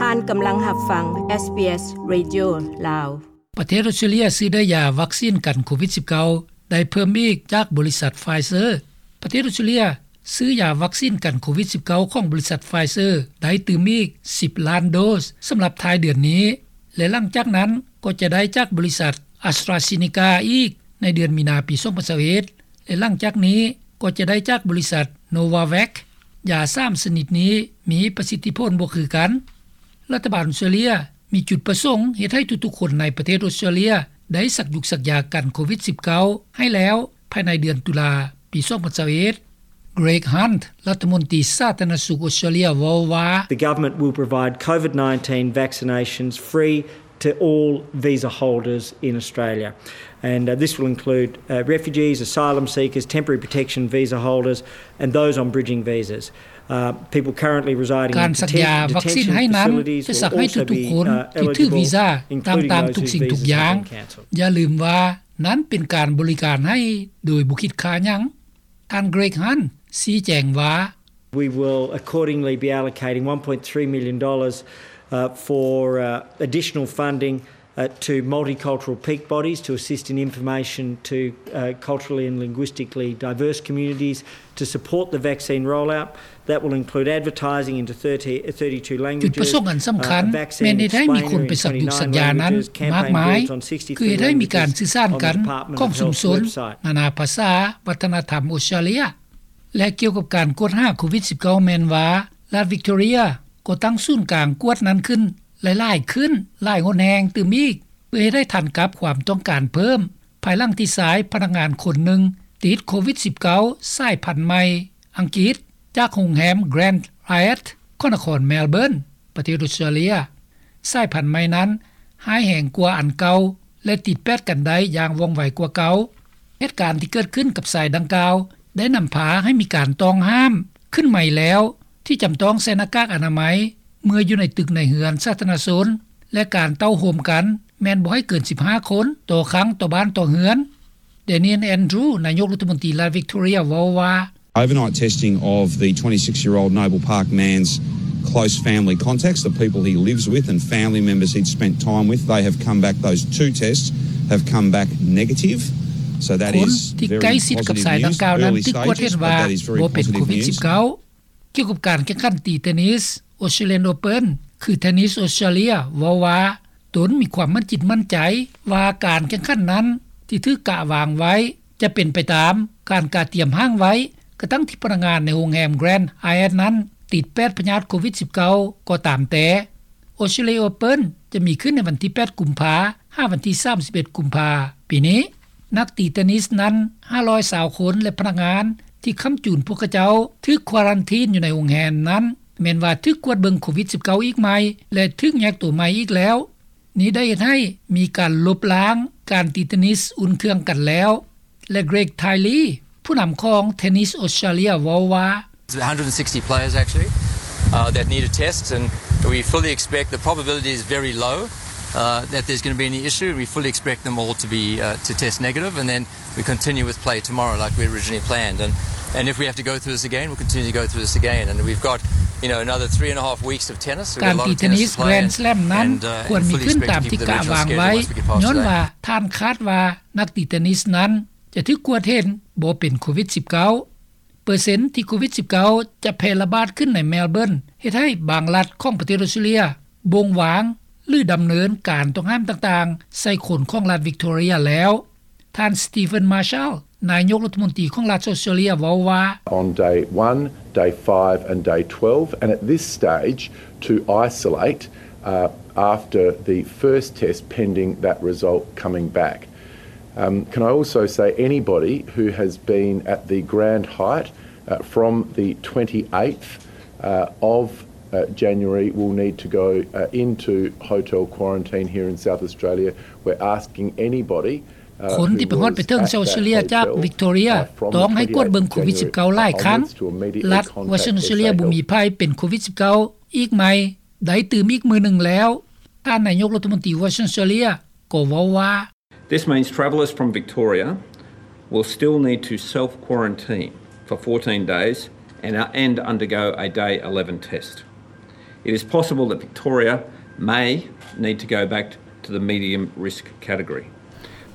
ອັນກຳລັງຮັບຟັງ SBS Radio ລາວ. ປະເທດອົດສະຕຣາເລຍຊື້ໄດ້ຢາວັກຊີນກັນໂຄວິດສິບເກົ້າ ໄດ້ເພີ່ມອີກຈາກບໍລິສັດ Pfizer. ປະເທດອົດສະຕຣາເລຍຊື້ຢາວັກຊີນກັນໂຄວິດສິບເກົ້າ ຂອງບໍລິສັດ Pfizer ໄດ້ຕື່ມອີກສິບລ້ານໂດສ ສຳລັບທ້າຍເດືອນນີ້ ແລະ ຫຼັງຈາກນັ້ນກໍຈະໄດ້ຈາກບໍລິສັດ AstraZeneca ອີກໃນເດືອນມີນາປີສອງພັນຊາວເອັດ ແລະ ຫຼັງຈາກນີ້ກໍຈະໄດ້ຈາກບໍລິສັດ Novavax. ຢາສາມຊະນິດນີ້ມີປະສິດທິຜົນບໍ່ຄືກັນ. ລັດຖະບານອົດສະຕຣາເລຍມີຈຸດປະສົງເຮັດໃຫ້ທຸກໆຄົນໃນປະເທດອົດສະຕຣາເລຍໄດ້ສັກຢຸກສັກຢາກັນໂຄວິດສິບເກົ້າ ໃຫ້ແລ້ວພາຍໃນເດືອນຕຸລາປີສອງພັນຊາວເອັດ. Greg Hunt ລັດຖະມົນຕີສາທາລະນະສຸກອົດສະຕຣາເລຍເວົ້າວ່າ The government will provide COVID nineteen vaccinations free to all visa holders in Australia, and, uh, this will include, uh, refugees, asylum seekers, temporary protection visa holders, and those on bridging visas. Uh, people currently residing in ການສັກຢາວັກຊີນໃຫ້ນັ້ນ ຈະສັກໃຫ້ທຸກໆຄົນທີ່ຖືກວີຊາຕ່າງໆທຸກສິ່ງທຸກຢ່າງ. ຢ່າລືມວ່ານັ້ນເປັນການບໍລິການໃຫ້ໂດຍບໍ່ຄິດຄ່າຫຍັງ. ທ່ານ Greg Hunt ຊີ້ແຈງວ່າ We will accordingly be allocating one point three million dollars, uh, for, uh, additional funding, uh, to multicultural peak bodies to assist in information to, uh, culturally and linguistically diverse communities to support the vaccine rollout. That will include advertising into thirty, thirty-two languages. ຈຸດປະສົງອັນສຳຄັນແມ່ນເຮັດໃຫ້ມີຄົນໄປສັກຢຸກສັກຢານັ້ນມາກມາຍ ຄືເຮັດໃຫ້ມີການສື່ສານກັນຂອງຊຸມຊົນນານາພາສາ ວັດທະນະທຳອົດສະຕຣາເລຍ. ແລະ ກ່ຽວກັບການກວດຫາໂຄວິດສິບເກົ້າ ແມ່ນວ່າລັດ Victoria ກໍຕັ້ງສູນກາງກວດນັ້ນຂຶ້ນຫຼາຍໆຂຶ້ນ ຫຼາຍຫົນແຫ່ງຕື່ມອີກ ເພື່ອເຮັດໃຫ້ທັນກັບຄວາມຕ້ອງການເພີ່ມ ພາຍຫຼັງທີ່ຊາຍພະນັກງານຄົນໜຶ່ງຕິດໂຄວິດສິບເກົ້າ ສາຍພັນໃໝ່ອັງກິດ ຈາກໂຮງແຮມ Grand Hyatt ຂອງນະຄອນ Melbourne ປະເທດອົດສະຕຣາເລຍ. ສາຍພັນໃໝ່ນັ້ນຮ້າຍແຮງກວ່າອັນເກົ່າ ແລະ ຕິດແປດກັນໄດ້ຢ່າງວ່ອງໄວກວ່າເກົ່າ. ເຫດການທີ່ເກີດຂຶ້ນກັບຊາຍດັ່ງກ່າວ ໄດ້ນຳພາໃຫ້ມີການຕ້ອງຫ້າມຂຶ້ນໃໝ່ແລ້ວ ທີ່ຈຳຕ້ອງໃສ່ໜ້າກາກອະນາໄມເມື່ອຢູ່ໃນຕຶກໃນເຮືອນສາທາລະນະຊົນ ແລະ ການເຕົ້າໂຮມກັນແມ່ນບໍ່ໃຫ້ເກີນສິບຫ້າຄົນຕໍ່ຄັ້ງຕໍ່ບ້ານຕໍ່ເຮືອນ. Daniel Andrews ນາຍົກລັດຖະມົນຕີລັດ Victoria ເວົ້າວ່າ Overnight testing of the twenty-six-year-old Noble Park man's close family contacts, the people he lives with and family members he'd spent time with, they have come back, those two tests have come back negative. So that is very positive news. ຄົນທີ່ໃກ້ຊິດກັບຊາຍດັ່ງກ່າວນັ້ນຖືກກວດເຫັນວ່າບໍ່ເປັນໂຄວິດສິບເກົ້າ. ກ່ຽວກັບການແຂ່ງຂັນຕີເທນນິສ Australian Open ຄື Tennis Australia ເວົ້າວ່າ ຕົນມີຄວາມໝັ້ນຈິດໝັ້ນໃຈວ່າການແຂ່ງຂັນນັ້ນທີ່ຖືກກະວາງໄວ້ຈະເປັນໄປຕາມການກະຕຽມຮ່າງໄວ້ ກະທັ່ງທີ່ພະນັກງານໃນໂຮງແຮມ Grand Hyatt ນັ້ນຕິດແປດພະຍາດໂຄວິດສິບເກົ້າ ກໍຕາມແຕ່. Australia Open ຈະມີຂຶ້ນໃນວັນທີແປດ ກຸມພາ ຫາວັນທີສາມສິບເອັດ ກຸມພາ ປີນີ້. ນັກຕີເທນນິສນັ້ນ ຫ້າຮ້ອຍຊາວຄົນ ແລະ ພະນັກງານທີ່ຄ້ຳຈູນພວກເຂົາເຈົ້າຖືກຄວາຣັນທີນຢູ່ໃນໂຮງແຮມນັ້ນ ແມ່ນວ່າຖືກກວດເບິ່ງໂຄວິດສິບເກົ້າ ອີກໃໝ່ ແລະ ຖືກແຍກຕົວໃໝ່ອີກແລ້ວ. ນີ້ໄດ້ເຮັດໃຫ້ມີການລົບລ້າງການຕີເທນນິສອຸ່ນເຄື່ອງກັນແລ້ວ ແລະ Greg Tiley ຜູ້ນຳຂອງ Tennis Australia ເວົ້າວ່າ There's a hundred and sixty players actually, uh, that need a test, and we fully expect, the probability is very low, uh, that there's gonna be any issue. We fully expect them all to be, uh, to test negative, and then we continue with play tomorrow like we originally planned. And, and if we have to go through this again, we'll continue to go through this again. And we've got, you know, another three and a half weeks of tennis. We've got a lot of tennis to play, and, and, uh, and fully expect to keep the regional schedule once we get past today. ການຕີເທນນິສ Grand Slam ນັ້ນຄວນມີຂຶ້ນຕາມທີ່ກະວາງໄວ້ ຍ້ອນວ່າທ່ານຄາດວ່ານັກຕີເທນນິສນັ້ນຈະຖືກກວດເຫັນບໍ່ເປັນໂຄວິດສິບເກົ້າ. ເປີເຊັນທີ່ໂຄວິດສິບເກົ້າ ຈະແຜ່ລະບາດຂຶ້ນໃນ Melbourne ເຮັດໃຫ້ບາງລັດຂອງປະເທດອົດສະຕຣາເລຍບົ່ງວາງ ຫຼື ດຳເນີນການຕ້ອງຫ້າມຕ່າງໆໃສ່ຄົນຂອງລັດ Victoria ແລ້ວ. ທ່ານ Stephen Marshall ນາຍົກລັດຖະມົນຕີຂອງລັດອົດສະຕຣາເລຍ ເວົ້າວ່າ On day one, day five and day twelve, and at this stage to isolate, uh, after the first test pending that result coming back. Um, can I also say anybody who has been at the Grand Hyatt, uh, from the twenty-eighth, uh, of, uh, January will need to go, uh, into hotel quarantine here in South Australia. We're asking anybody, uh, who was at that hotel, uh, from the twenty-eighth of January, uh, onwards to a, a month. ຄົນທີ່ໄປຮອດໄປເຖິງເຊົາເຊເລຍຈາກ Victoria ຕ້ອງໃຫ້ກວດເບິ່ງໂຄວິດສິບເກົ້າຫຼາຍຄັ້ງ. ລັດ Western Australia ບໍ່ມີໃຜເປັນໂຄວິດສິບເກົ້າ ອີກໃໝ່ ໄດ້ຕື່ມອີກມື້ໜຶ່ງແລ້ວ. ທ່ານນາຍົກລັດຖະມົນຕີ Western Australia ກໍເວົ້າວ່າ This means travellers from Victoria will still need to self-quarantine for fourteen days and, uh, and undergo a day eleven test. It is possible that Victoria may need to go back to the medium risk category,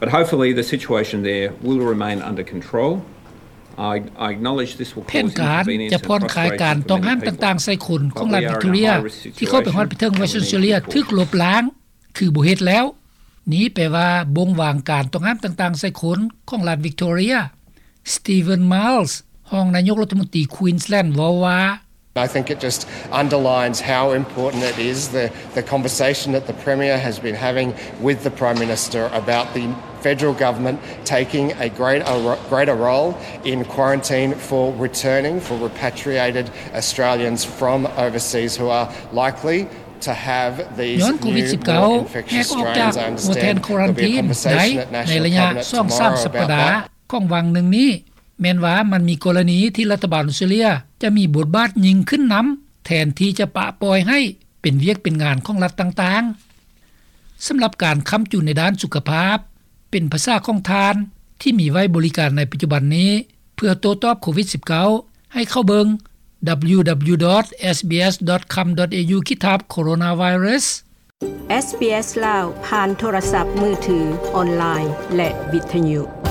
but hopefully the situation there will remain under control. I, I acknowledge this will cause inconvenience and frustration for many people, but we are in a high risk situation and we need to push forward. ແຜນການຈະຜ່ອນຄາຍການຕ້ອງຫ້າມຕ່າງໆໃສ່ຄົນຂອງລັດວິກຕໍເຣຍ ທີ່ເຂົ້າໄປຮອດໄປເຖິງໄວເຊີເຈຍເລຍ ຖືກລົບລ້າງ ຄືບໍ່ເຮັດແລ້ວ. ນີ້ແປວ່າບົ່ງວາງການຕ້ອງຫ້າມຕ່າງໆໃສ່ຄົນຂອງລັດວິກຕໍເຣຍ. Stephen Miles ຮອງນາຍົກລັດຖະມົນຕີ Queensland ເວົ້າວ່າ I think it just underlines how important it is, the, the conversation that the Premier has been having with the Prime Minister about the federal government taking a greater, greater role in quarantine for returning, for repatriated Australians from overseas who are likely to have these new, more infectious strains. I understand there'll be a conversation at National Cabinet tomorrow about that. ຍ້ອນໂຄວິດສິບເກົ້າ ແຫກອອກຈາກຫົວແທ່ນຄວາຣັນທີນໄດ້ໃນໄລຍະສອງສາມສັບປະດາ ຂອງຫວ່າງໜຶ່ງນີ້ ແມ່ນວ່າມັນມີກໍລະນີທີ່ລັດຖະບານອອສເຕຣເລັຽຈະມີບົດບາດຍິ່ງຂຶ້ນນຳ ແທນທີ່ຈະປະປ່ອຍໃຫ້ເປັນວຽກເປັນງານຂອງລັດຕ່າງໆ. ສຳລັບການຄ້ຳຈຸນໃນດ້ານສຸຂະພາບ ເປັນພາສາຂອງທ່ານທີ່ມີໄວ້ບໍລິການໃນປັດຈຸບັນນີ້ ເພື່ອໂຕ້ຕອບໂຄວິດສິບເກົ້າ ໃຫ້ເຂົ້າເບິ່ງ www.sbs.com.au/coronavirus. SBS ລາວ ຜ່ານໂທລະສັບມືຖື, ອອນລາຍ ແລະ ວິທະຍຸ.